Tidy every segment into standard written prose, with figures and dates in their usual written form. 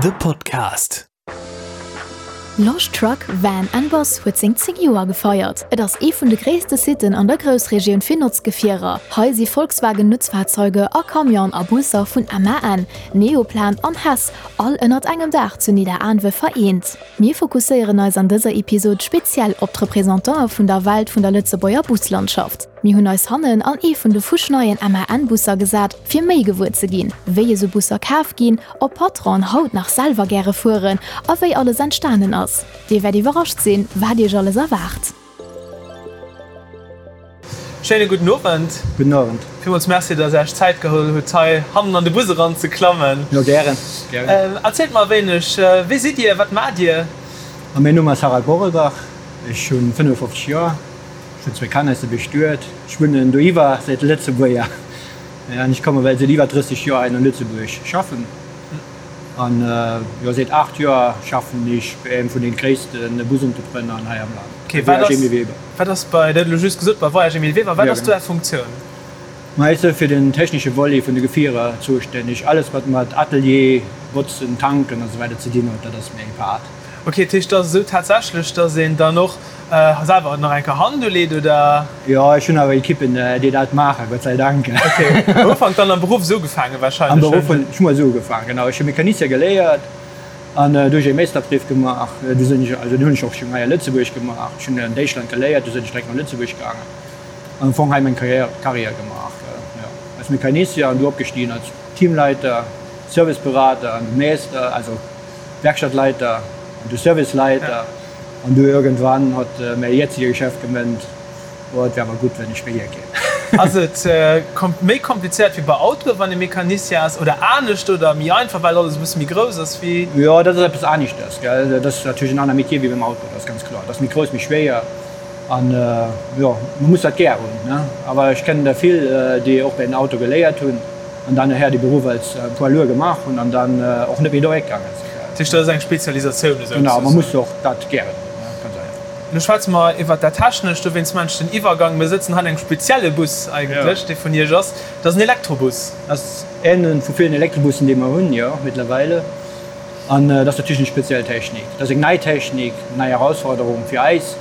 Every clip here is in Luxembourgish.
The Podcast. Losch Truck, Van and Bus huet seng 10 Joer gefeiert. Et ass ee vun de gréisste Sitten an der Groussregioun fir Notzgefierer. Hei si Volkswagen Nutzfahrzeuge a Camionen a Busser vun MAN, Neoplan an Hess all ënnert engem Daach zu Nidderaanwe vereent. Mir fokusséieren eis an dëser Episod speziell op d'Representantë vun der Welt vun der Lëtzebuerger Buslandschaft. Mir hunn eis hannen an ee vun de fuschneien MAN-Busser gesat, fir méi gewuer ze ginn, wéi esou Busser kaf ginn, ob Patronen haut nach selwer gäre fueren a wéi alles entstanen ass. Dir wäert iwwerrascht sinn, wat iech alles erwaart. Schéine gudden Owend. Gudden Owend. Villmools Merci, dass Är Iech Zäit geholl hutt, hei hannen an de Bus eran ze klammen. Jo, gären, gären. Erzielt mer e wéineg, Wie sidd Dir? Wat maacht Dir? Mäin Numm ass Harald Borelbach, ech hunn 55 Joer. Ech hunn zwéi Kanner, ech si bestuet. Ech wunnen doiwwer, säit Lëtzebuerger an ech komme well säit iwwer 30 Joer hei an Lëtzebuerg schaffen. An jo säit 8 Joer schaffen ech bei engem vun den gréissten Busentrepreneuren hei am Land, bei Voyage Emile Weber. Wat ass bei, dat hutt elo just gesot, bei Voyage Emile Weber, wat ass do Är Funktioun? Ma ech si fir den technesche Volet vun de Gefierer zoustänneg. Alles wat mat Atelier, Botzen, Tanken a sou weider ze dinn huet, dat ass meng Part. Ok, dat heescht, et ass esou tatsächlech, dass een dann och selwer nach eng Kéier Hand uleet, oder? Jo, ech hunn awer Ekippen, déi dat maachen, Gott sei Dank. Ok, am Ufank dann am Beruff esou ugefaangen wahrscheinlech? Am Beruff hunn ech mol esou ugefaangen, genau. Ech hu Mecanicien geléiert an du hu ech e Meesterbrief gemaach. Du sinn ech, also deen hunn ech och schonn hei a Lëtzebuerg gemaach. Ech hunn an Däitschland geléiert, du sinn ech direkt no Lëtzebuerg gaangen an am Fong hei meng Carrière, Carrière gemaach, jo, als Mecanicien an du opgestigen als Teamleiter, Serviceberater an du Meester, also. Werkstattleiter an du Serviceleiter an du irgendwann hott mäi jetzige Chef gemënnt, oh et wär awer gutt wenn ech méi hier kéim. Ass et méi komplizéiert wéi bei Autoe wann ee Mecanicien ass oder anescht oder méi einfach well alles e bësse méi grouss ass wéi? Jo dat ass eppes aneschters gell, dat ass natierlech en aner Metier wéi beim Auto, dat ass ganz kloer. Dat ass méi grouss, méi schwéier an jo man muss dat gär hunn ne, awer ech kennen der vill déi och bei den Auto geléiert hunn. An dann nachher de Beruff als Poids lourd gemaach hunn an dann och net méi doréck gaangen sinn. Dat heescht, dat ass eng Spezialisatioun esou Genau, man muss och dat gären hunn, ganz einfach. Elo schwätze mer iwwert dat Technescht, dowéinst maachen ech den Iwwergang. Mir sëtzen hei an engem spezielle Bus eigentlech, dee vun Iech ass. Dat ass en Elektrobus. Dat ass een vu villen Elektrobussen, déi mer hunn, jo, mittlerweile. An dat ass natierlech eng speziell Technik. Dat ass eng nei Technik, eng nei Erausforderung fir eis,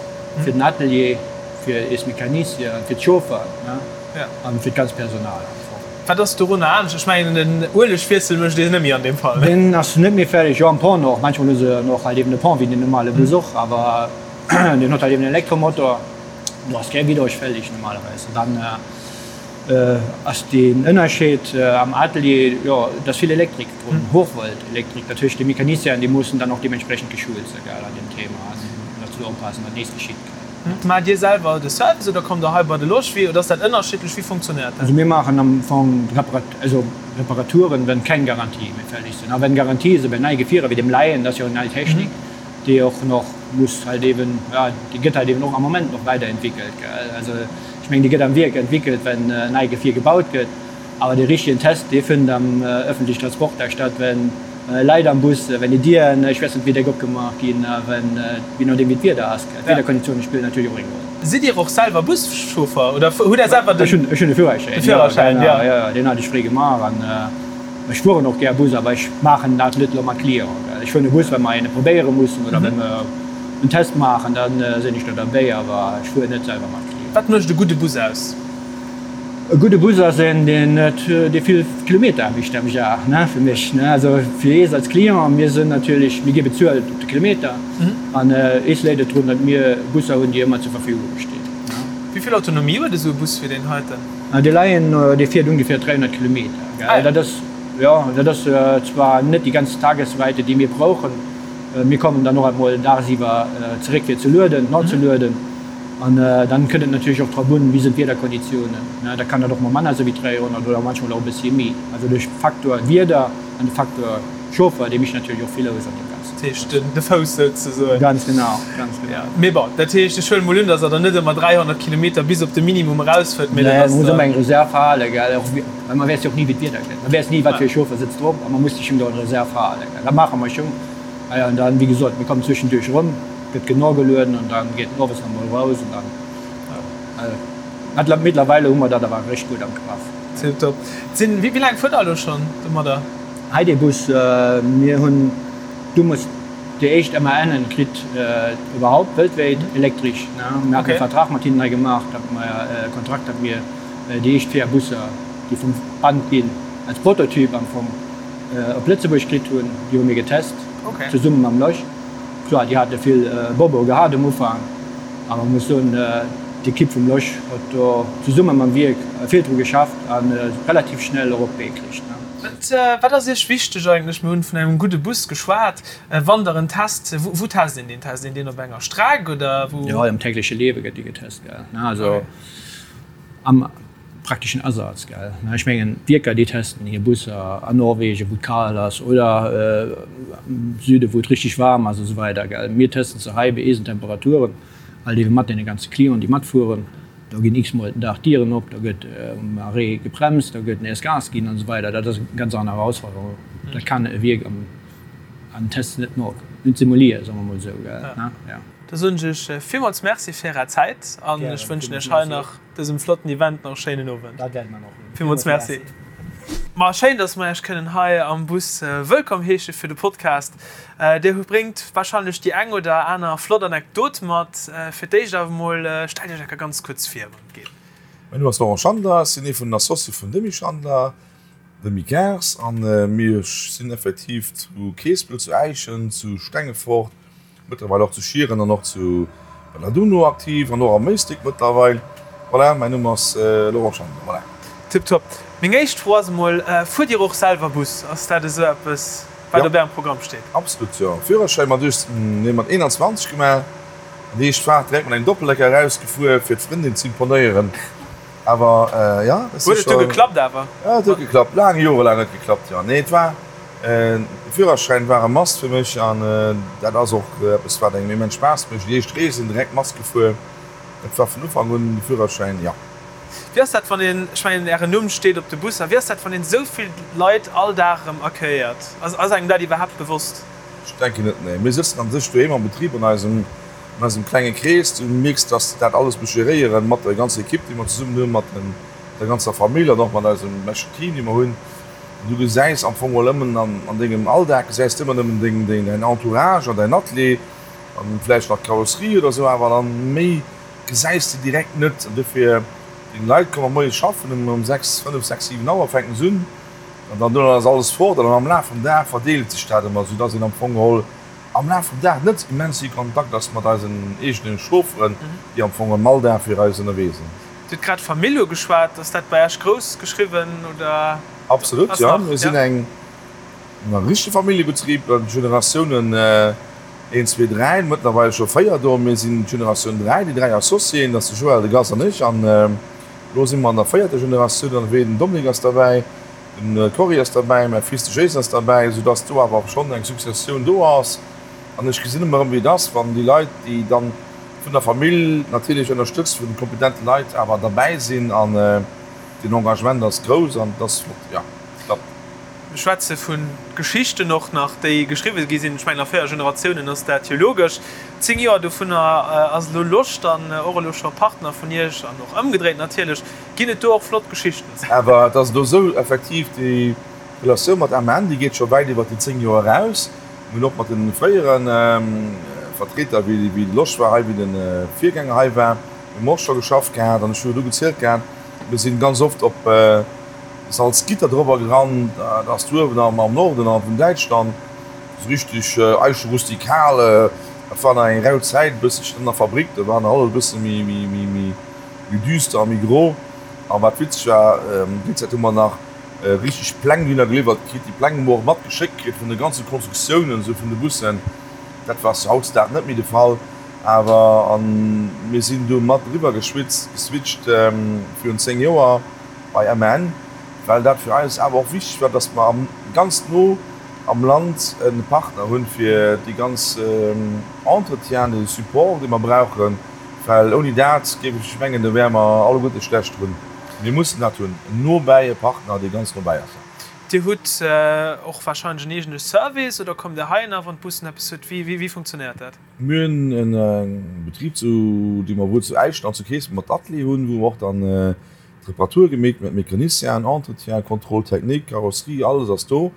fir den Atelier, fir eis Mecanicien, fir d'Chaufferen an fir d'ganz Personal am Fong. Wat ass dorunner anescht? Ech mengen den Uelegwiessel mécht een net méi an deem Fall. Deen ass net méi fälleg, jo am Pont och. Manchmol hu se och halt eben e Pont wéi den normale Bus och, awer deen huet halt eben en Elektromotor, do ass kee Vidange fälleg normalerweis. An dann ass den Ënnerscheed am Atelier, jo et ass vill Elektrik drun, Hochvolt Elektrik, dat heescht déi Mecanicienen déi mussen dann och deementsprechend geschult sinn an deem Thema an dozou oppassen wat nees geschitt. Maacht Dir selwer de Service oder kommt Der hei bei de Loschwi oder ass dat ënnerschiddlech? Wéi funktionéiert dat? Also mir maachen am Fong also Reparaturen, wenn keng Garantie méi fälleg sinn. A wenn Garantie sinn, bei nei Gefierer wéi dem Lion, dat ass jo eng nei Technik, déi och nach muss halt eben, ja, déi gëtt halt eben och am Moment nach weiderentwickelt, gell. Also ech mengen, déi gëtt am Wierk entwickelt, wenn en nei Gefier gebaut gëtt. Awer dee richtegen Test, dee fënnt am öffentlichen Transport da statt, wenn Leit am Bus, wenn déi Dieren, ech weess net wéi déck, opgemaach ginn a wenn, je nodeem wéi d'Wieder ass, d'Wiederkonditioune spillen natierlech och eng Roll. Sidd Dir och selwer Buschauffer oder hutt Der selwer den. Ech hunn, ech hunn e Führerschäin, De Führerschäin, jo, jo, jo, deen hat ech fréi gemaach an ech fueren och gär Bus, awer ech maachen dat net elo mat Clienten, gell. Ech fueren e Bus, wa mer een probéiere mussen oder wa mer en Test maachen, da sinn ech do derbäi, awer ech fueren net selwer mat Clienten. Wat mécht e gudde Bus aus? E gudde Bus ass een, deen net, dee vill Kilometer mécht am Jar, ne, fir mech, ne. Also fir ees als Client, mir sinn natierlech, mir gi bezuelt op de Kilometer an ees léit et drun, datt mir Busser hunn, déi ëmmer zur Verfügung stinn, ne. Wéi vill Autonomie huet esou e Bus wéi deen heiten? Dee Lion, dee fiert ongeféier 300 Kilometer, gell. Dat ass, jo, dat ass zwar net déi ganz Tagesweite, déi mir brauchen. Mir kommen dann och emol dagsiwwer zeréck fir ze lueden, nozelueden. An dann kënnt et natierlech och drop un, wéi sinn d'Wiederkonditiounen. Da kann dat och mol manner sinn wéi 300 oder manchmol och e bëssi méi. Also de Faktor Wieder an de Faktor Chauffer, dee mécht natierlech och vill aus an deem Ganzen. Dat heescht de Fouss souzesoen. Ganz genau, ganz genau. Mee bon, dat heescht, ech huelen mol un, datt Der dann net ëmmer 300 Kilometer bis op de Minimum erausfuert, mee dat ass. Nee, man muss ëmmer eng Reserv halen, gell, och well man weess jo och ni wéi d'Wieder gëtt. Man weess ni wat fir e Chauffer sëtzt drop a man muss sech schonn do eng Reserv halen, gell. Dat maache mer schonn. Ah jo, an dann, wéi gesot, mir kommen zwëschenduerch erëm. Gëtt genau gelueden an dann geet en owes nach mol raus an dann ja mittlerweile hu mer dat awer richteg gutt am Graff. Tiptop. Sinn, wéi laang fuert der elo schonn domadder? Hei dee Bus, mir hunn. Du muss déi éischt MANen kritt iwwerhaupt weltwäit elektresch. Mir haten e Vertrag mat hinnen hei gemaach, datt mer e Kontrakt, datt mir déi éischt 4 Busser, déi vum Band ginn, als Prototyp am Fong op Lëtzebuerg kritt hunn. Déi hu mir getest zesumme mam Losch. Kloer, déi hate vill Bobo gehat um Ufank, awer ech muss soen, d'Ekipp vum Losch huet do zesumme mam Wierk vill dru geschafft a relativ schnell och op d'Bee kritt. Wat ass Iech wichteg eigentlech? Mir hunn vun engem gudde Bus geschwat. Wann Der en test, wou test een deen? Test een deen op enger Streck oder wou? Jo, am tägleche Liewe gëtt dee getest, gell. Also am prakteschen Asaz, gell. Ech mengen, d'Wierker, déi testen hir Busser an Norwegen, wou et kal ass, oder am Süde, wou et richteg waarm ass a sou weider, gell. Mir testen se hei bei eisen Temperaturen, halt eebe mat deene ganze Clienten, déi matfueren. Do ginn x-mol den Dag d'Dieren op, do gëtt um Arrêt gebremst, do gëtt nees Gas ginn an esou weider. Dat ass eng ganz aner Erausforderung. Dat kann e Wierk am an Test net no, net simulieren, soe mer mol esou, gell? Ja. Da soen ech iech villmools Merci fir Är Zäit an ech wënschen iech hei nach dësem flotten Event nach e schéinen Owend. Dat wäerte mer nach hunn. Villmools Merci. Ma schéin, dass mer iech kënnen hei am Bus wëllkomm heesche fir de Podcast. Dir bréngt warscheinlech déi eng oder aner flott Anekdot mat. Fir d'éischt awer emol, stellt Iech enker ganz kuerz vir, wann et geet. Mäin Numm ass Laurent Schandler, ech sinn ee vun den Associë vun Demy Schandler, Demy Cars, a mir sinn effektiv zu Keespel, zu Äischen, zu Stengefort, Mëttlerweil och zu Schieren an och zu Belladunno aktiv an och am Méistick mëttlerweil. Voilà, mäin Numm ass Laurent Schandler. Voilà. Tiptop. Meng éischt Fro ass emol, Fuert Dir och selwer Bus? Ass dat esou eppes, wat op Ärem Programm steet? Absolut, jo. Führerschäin mat 18, nee mat 21 gemaach an déi éischt Faart direkt mat engem Doppeldecker erausgefuer, fir d'Frëndin z'imponéieren. Awer jo, dat si scho. Huet et du geklappt awer? Jo, et huet geklappt. Laang, jorelaang huet geklappt, jo. Nee, et war. De Führerschäin war e Must fir mech an dat ass och eppes wat engem immens Spaass mécht. Déi éischt Reesen direkt Mast gefuer, dat war vun Ufank un de Führerschäin, jo. Wéi ass dat wann een, ech mengen ären Numm steet op de Busser, wéi ass dat wann een esou vill Leit all Dag erëm accueilléiert? Ass engem dat iwwerhaapt bewosst? Ech denken net, nee. Mir sëtzen an sech doheem am Betrib an eisem an eisem klenge Krees. Du mierks, dass de dat alles muss geréieren mat der ganzer Ekipp déi mer zesummen hunn, mat der ganzer Famill an och mat eisem beschten Team dee mer hunn. Du gesäis am Fong mol ëmmen an dengem Alldag gesäis de ëmmer nëmmen deng, deng, däin Entourage an däin Atelier an vläicht nach d'Karosserie oder esou, awer dann méi gesäis de direkt net. An dofir, deng Leit komme moies schaffen ëm ëm 6, 5, 6, 7 Auer fänken se un an dann duerno ass alles fort an dann am Laf vum Dag verdeelt sech dat ëmmer, soudass een am Fong geholl am Laf vum Dag net immens vill Kontakt ass mat eisen eegene Chaufferen, déi am Fong am Alldag fir eis ënnerwee sinn. Dir hutt grad Famill ugeschwat. Ass dat bei Iech grouss geschriwwen oder? Absolut, jo. Mir sinn eng richtege Familljebetrib, Generatiounen een, zwee, dräi, mëttlerweil scho véier do. Mir sinn d'Generatioun dräi, déi dräi Associéen, dat ass de Joël, de Gast an ech. An elo si mer an der véierter Generatioun ënnerwee. Den Dominique ass derbäi, de Cory ass derbäi, mäi Fils de Jason ass derbäi, soudass do awer schonn eng Successioun do ass. An ech gesinn ëmmer erëm, wéi et ass, wann déi Leit, déi dann vun der Famill natierlech ënnerstëtzt, vun kompetente Leit awer derbäi sinn an den Engagement ass grouss an et ass flott, jo, et klappt. Mir schwätze vu Geschichten och nach, déi geschriwwe gi sinn. Ech mengen, a 4 Generatiounen ass dat jo logesch. 10 Joer dovunner ass elo Loscht an och elo scho Partner vun Iech an och ëmgedréit natierlech. Ginn et do och flott Geschichten? Awer et ass elo esou, effektiv, déi Relatioun mat MAN, déi geet scho wäit iwwer déi 10 Joer eraus. Mir hunn och mat de fréiere Vertreter, wéi de Losch war hei, wéi de Virgänger hei war, hu mer och scho geschafft gehat. An ech hu jo du gezielt gehat, mir si ganz oft op Salzgitter drobber gerannt, dat ass do uewen am Norden a vun Däitschland, esou richteg Eiche rustikal. Dat war nach eng rau Zäit e bësselchen an der Fabrik, do war nach alles e bësse méi düster a méi gro. A wat witzeg war, déi Zäit hu mer nach richteg Pläng dunner geliwwert kritt. Déi Pläng hu mer och matgeschéckt kritt vun de ganze Konstruktiounen esou vun de Bussen. Dat war hautdesdaags net méi de Fall, awer an mir sinn du mat eriwwer geschwitzt, geswitcht virun 10 Joer bei MAN, well dat fir eis awer och wichteg war, dass mer am ganz no am Land e Partner hunn fir déi ganz Entretien, de Support dee mer brauchen, well ouni dat géif ech mengen, do wäre mer alleguerte schlecht drun. Mir mussen dat hunn, nobäi, e Partner, dee ganz nobäi ass. Dir hutt och warscheinlech en eegene Service oder kommt Dir heihinner, wann d'Bussen eppes huet? Wéi funktionéiert dat? Mir hunn e Betrib, dee mer wuel zu Äischen an zu Keespelt mat Atelier hunn, wou mer och dann d'Reparature gemeet, mat Mecanicienen, Entretien, Contrôle technique, Carrosserie, alles ass do.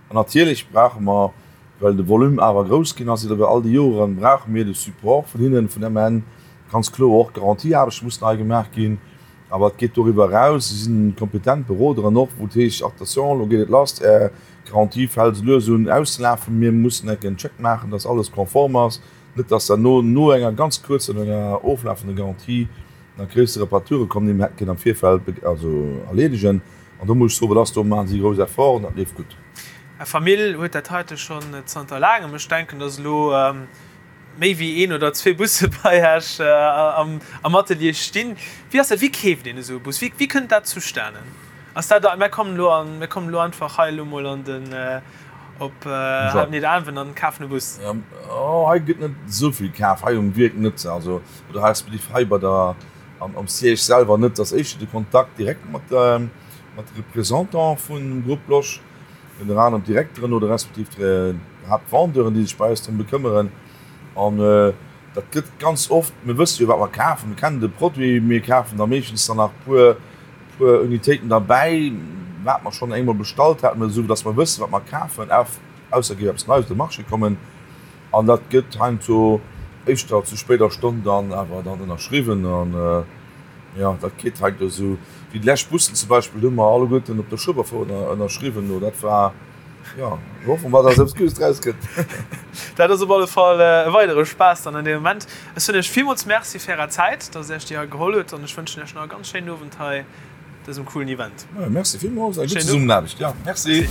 An natierlech brauche mer. Well de Volume awer grouss ginn ass iwwer all déi Joren, brauche mir de Support vun hinnen, vun MAN. Ganz kloer, och d'Garantieaarbechte mussen hei gemaach ginn. Awer et geet doriwwer eraus. Si sinn kompetent Beroderen och, wou et heescht, Attention, elo geet et lass, Är Garantie fält esou lues un auszelafen, mir mussen enk en Check maachen, dass alles konform ass, net dass derno no enger ganz kuerzer, no enger oflafender Garantie nach gréisser Reparature kommen, déi mir hätte kënnen am Virfeld also erleedegen. An do muss ech soen, dat ass, do maache si grouss Efforten, dat leeft gutt. Är Famill huet dat heite schonn zanter laangem. Ech denken, dass elo méi wéi een oder zwee Busse bei Iech am Atelier stinn. Wéi ass dat, wéi keeft een esou e Bus? Wéi kënnt dat zustanen? Ass dat, mir kommen elo an, mir kommen elo einfach hei elo mol an den, op Nidderaanwen an kafen e Bus? Oh, hei gëtt net esou vill kaf, hei um Wierk net, also oder respektiv hei bei der, am Siège selwer net. Et ass éischter de Kontakt direkt mat de Représentante vum Groupe Losch. Ënner anerem d'Direkteren oder respektiv d'Haaptvendeuren, déi sech bei eis drëm bekëmmeren. An dat gëtt ganz oft, mir wësse jo, wat mer kafen, mir kennen de Produit, mir kafen da meeschtens dann nach e puer, puer Unitéiten derbäi, wat mer schonn engmol bestallt haten, esou datt mer wëssen, wat mer kafen, ausser et géif eppes Neies op de Marché kommen. An dat gëtt heiansdo éischter zu spéider Stonn dann awer dann ënnerschriwwen. An jo, dat geet heiansdo esou. Wéi déi lescht Bussen zum Beispill, do hu mer alleguerten op der Schueberfouer ënnerschriwwen. Do dat war, jo, ech hoffe mer, datt eppes Guddes draus gëtt. Dat ass op alle Fall e weidere Spaass dann an deem Moment. Ech soen Iech villmools Merci fir Är Zäit, datt Dir Iech déi hei geholl hutt an ech wënschen Iech nach e ganz schéinen Owend hei. Dësem coolen Event. Merci villmools, eng gutt Zesummenaarbecht, jo merci.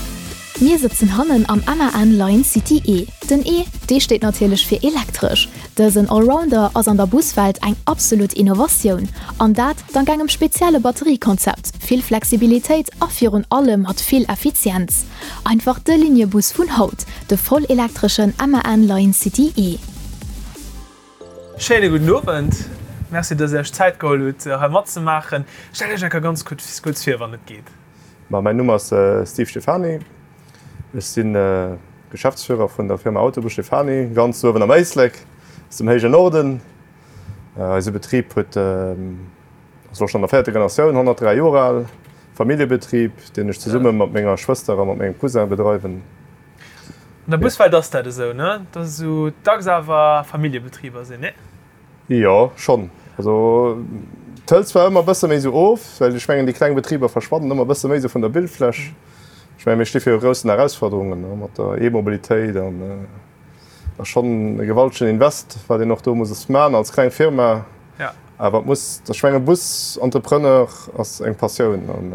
Mir sëtzen hannen am MAN Lion City E. Den E, dee steet natierlech fir elektresch. Dësen Allrounder ass an der Buswelt eng absolut Innovatioun. An dat dank engem spezielle Batteriekonzept, vill Flexibilitéit a virun allem mat vill Effizienz. Einfach de Liniebus vun haut, de vollelektreschen MAN Lion City E. Schéine gudden Owend. Merci, dass Dir Iech d'Zäit geholl hutt, hei matzemaachen. Stellt Iech eng Kéier ganz kuerz vir, wann et geet. Ma mäin Numm ass Steve Stephany. Ech si Geschäftsführer vun der Firma Autobus Stephany, ganz uewen am Éislek, aus dem héijen Norden. Eise Betrib huet, ass elo schonn an der véierter Generatioun, 103 Joer al, Familljebetrib, deen ech zesumme mat menger Schwëster a mat mengem Cousin bedreiwen. An der Buswelt ass dat esou, ne? Dass esou dacks awer Familljebetriber sinn, ne? Jo, schonn. Also et hëlt zwar ëmmer e bësse méi esou of, well ech mengen, déi kleng Betriber verschwannen ëmmer e bësse méi esou vun der Bildfläch. Ech mengen, mir sti viru groussen Erausforderungen, ne, mat der E-Mobilitéit an et ass schonn e gewaltegen Invest, wat een och do muss man als kleng Firma. Awer et muss, ech mengen, Busentrepreneur ass eng Passioun an.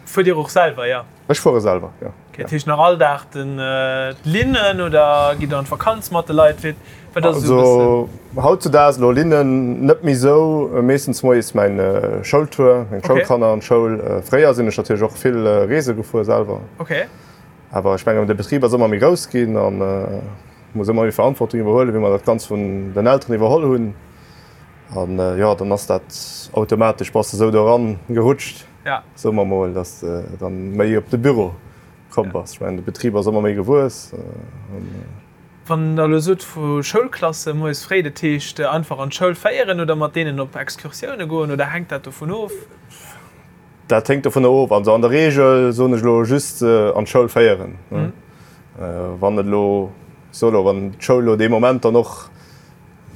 Fuert Dir och selwer, jo? Ech fuere selwer, jo. Okay, dat heescht nach all Dag den d'Linnen oder gitt Der an d'Vakanz mat de Leit? Wéi, wat ass esou e bëssen? Also hautzudaags elo Linnen net méi esou, meeschtens moies mäin Schoultour, meng Schoulkanner an d'Schoul. Fréier sinn ech natierlech och vill Reese gefuer selwer. Okay. Awer ech mengen de Betrib ass ëmmer méi grouss ginn an muss ëmmer méi Verantwortung iwwerhuelen, wéi mer dat Ganzt vun den Elteren iwwerholl hunn. An jo, dann ass dat automatesch, bass de esou do eran gerutscht. Ja. Soe mer mol, dass de dann méi op de Büro komm bass. Ech mengen, de Betrib ass ëmmer méi gewuess. Wann Der elo sot vu Schoulklasse moies fréi, dat heescht einfach an d'Schoul féieren oder mat deenen op Excursioune goen oder hänkt dat dovun of? Dat héngt dovunner of. Also an der Reegel soen ech elo just an d'Schoul féieren. Wann et elo, ech soe elo, wann d'Schoul elo dee Moment dann och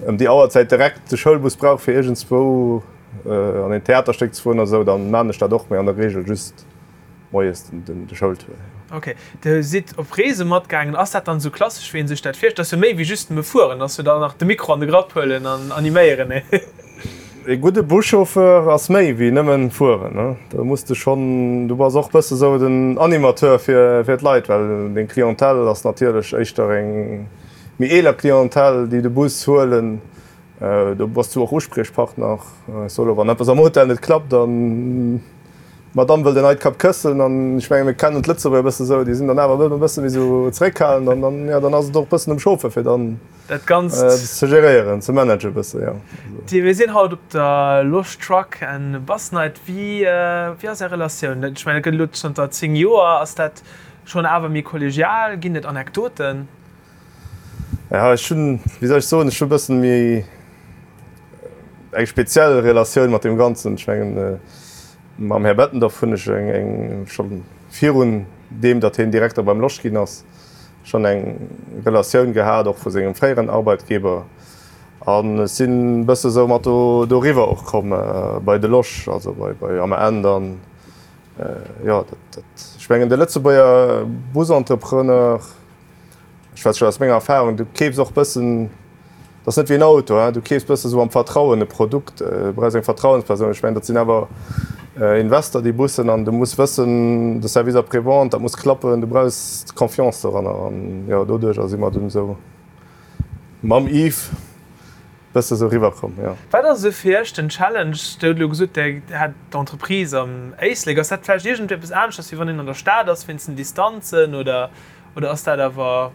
ëm déi Auerzäit direkt de Schoulbus brauch fir iergendswou an een Theaterstéck ze fueren oder esou, dann maan ech dat och, mee an der Regel just moies de Schoultour. Ok, Dir sidd op Reese matgaangen. Ass dat dann esou klassesch wéi een sech dat virstellt? Ass jo méi wéi just nëmme fueren, ass jo dann nach de Mikro an de Grapp huelen an animéieren, nee? E gudde Buschauffeur ass méi wéi nëmmen fueren, ne? Do muss de schonn, du bass och bësse sou den Animateur fir fir d'Leit, well deng Clientèle ass natierlech éischter eng Méi eeler Clientèle, déi de Bus huelen, do bass du och Uspriechpartner. Ech soe lo, wann eppes am Hotel net klappt an d'Madame wëllt en neit Kap Këssen, an ech menge mir kennen d'Lëtzebuerger e bësse sou, déi sinn dann awer e bësse méi sou zeréckhalend an dann, jo, dann ass et och e bëssen um Chauffeur fir dann dat Ganzt ze geréieren, ze managen e bësse, jo. Mir sinn haut op der Losch Truck and Bus Night. Wéi ass Är Relatioun? Ech mengen, et gëtt elo zanter 10 Joer. Ass dat schonn awer méi kollegial? Ginn et Anekdoten? Ja, ech hunn, wéi soll ech soen, ech hu e bëssen méi eng speziell Relatioun mat deem Ganzen. Ech mengen, mam Här Bettendorf hunn ech eng, eng scho virun deem, datt hien Direkter beim Losch ginn ass. Schonn eng Relatioun gehat, och vu sengem fréieren Arbeitgeber. An ech sinn e bësse sou mat do doriwwer och komm bei de Losch, also bei bei AMN dann. Jo, dat, dat, ech mengen de Lëtzebuerger Busentrepreneur, ech schwätze scho aus menger Erfahrung, du keefs och bëssen, dat ass net wéi en Auto, hein, du keefs bësse sou am Vertrauen e Produkt, du brauchs eng Vertrauenspersoun. Ech mengen, dat sinn awer Investor, déi Bussen, an du muss wëssen, de Service après-vente, dat muss klappen, du brauchs d'Confiance doranner. An jo, doduercher si mer dunn esou mam Yves bësse sou riwwer komm, jo. Wat ass esou fir Iech den Challenge? Dir hutt elo gesot, Dir hätt d'Entreprise am Éislek. Ass dat vläicht iergendeppes aneschters, wéi wann een an der Stad ass, wéinst den Distanzen, oder ass dat awer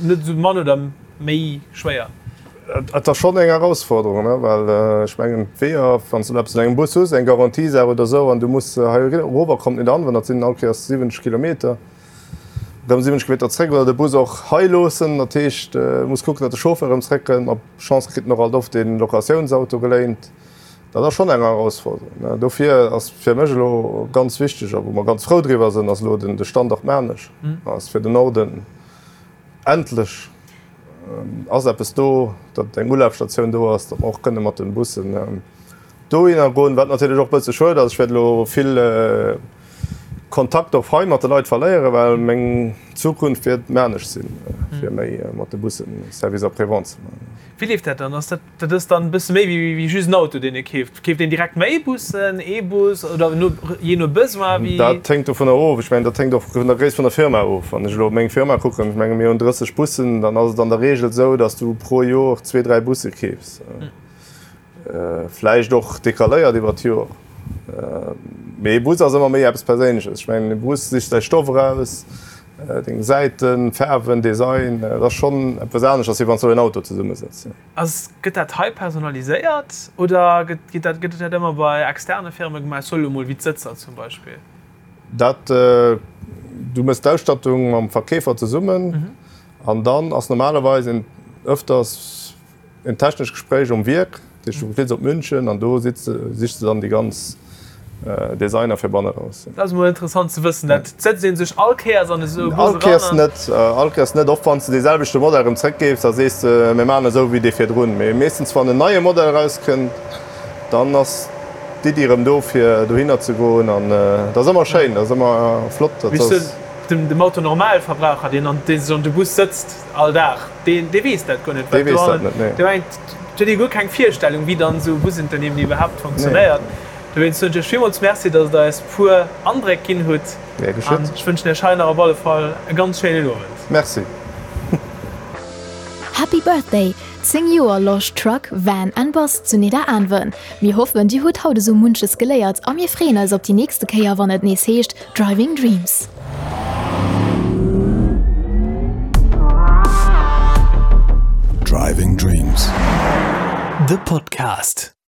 Net esou mann oder méi schwéier? Et ass schonn eng Erausforderung, well ech mengen d'Weeër, wann s de eppes un engem Bus hues, eng Garantiesaach oder esou, an du muss hei erover, kommt net an, well dat sinn all Kéiers 70 Kilometer, erëm 70 Kilometer zréck, oder de Bus och hei loossen. Dat heescht, du muss kucken, datt de Chauffeur erëm zréckkënnt. Mat Chance kritt en och alt oft ee Locatiounsauto geléint. Dat ass schonn eng Erausforderung. Dofir ass fir mech elo ganz wichteg, a wou mer ganz frou driwwer sinn, ass elo de Standort Maarnech ass fir den Norden. Endlech ass eppes do, datt eng Ulafstatioun do ass, datt mer och kënne mat de Bussen dohinner goen. Wat natierlech och e bësse schued ass, ech wäert elo vill Kontakt och hei mat de Leit verléieren, well meng Zukunft wäert Maarnech sinn, fir méi mat de Bussen Service après-vente ze maachen. Wéi leeft dat dann? Ass dat Dat ass dann e bësse méi wéi just en Auto, deen ee keeft. Keeft een direkt méi Bussen, ee Bus oder no, jee no Besoin? Wéi? Dat hänkt dovunner of. Ech mengen, dat hänkt och vun der Gréisst vun der Firma of. Wann ech elo op meng Firma kucken, ech menge mir hunn 30 Bussen, dann ass et an der Reegel esou, datt s du pro Jor zwee, dräi Busse keefs. Vläicht och decaléiert iwwer d'Jor. Mee ee Bus ass ëmmer méi eppes Perséinleches. Ech mengen, e Bus sichs däi Stoff eraus, deng Säiten, Faarwen, Design. Dat ass schonn eppes aneschters, wéi wann s du en Auto zesummesetz. Ass, gëtt dat hei personaliséiert oder gëtt, gëtt dat, gëtt dat ëmmer bei externe Firme gemaach? Ech soe lo mol wéi d'Sëtzer zum Beispill. Dat, du méchs d'Ausstattung mam Verkeefer zesummen an dann ass normalerweis en ëfters en technescht Gespréich um Wierk. Dat heescht, du fliss op München an do sitz, sichs de dann déi ganz Designer fir banne raus. Dat ass emol interessant ze wëssen. Dat setzt ee sech all Kéiers an esou e Bus eran? All Kéiers net, all Kéiers net. Och wann s de dee selwechte Modell erëm zréckgeefs, da sees de, mir maachen esou wéi dee virdrun. Mee meeschtens wann en neie Modell erauskënnt, dann ass d'Iddi erëm do fir dohinner ze goen. An dat ass ëmmer schéin, dat ass ëmmer flott. Dat ass. Dem Autonormalverbraucher, deen an dee sech an de Bus sëtzt all Dag, dee weess dat guer net. Dee weess dat net, nee. Dee mengt, huet ee guer keng Virstellung, wéi dann esou e Busunternehmen iwwerhaapt funktionéiert. Dowéinst soen ech iech villmools Merci, dass der eis puer Andréck ginn hutt. Gär geschétt. An ech wënschen iech hei nach op alle Fall e ganz schéinen Owend. Merci. Happy Birthday! 10 Joer Losch Truck, Van and Bus zu Nidderaanwen. Mir hoffen dir hutt haut esou munches geléiert a mir freeën eis op déi nächste Kéier wann et nees heescht Driving Dreams. Driving Dreams, de Podcast.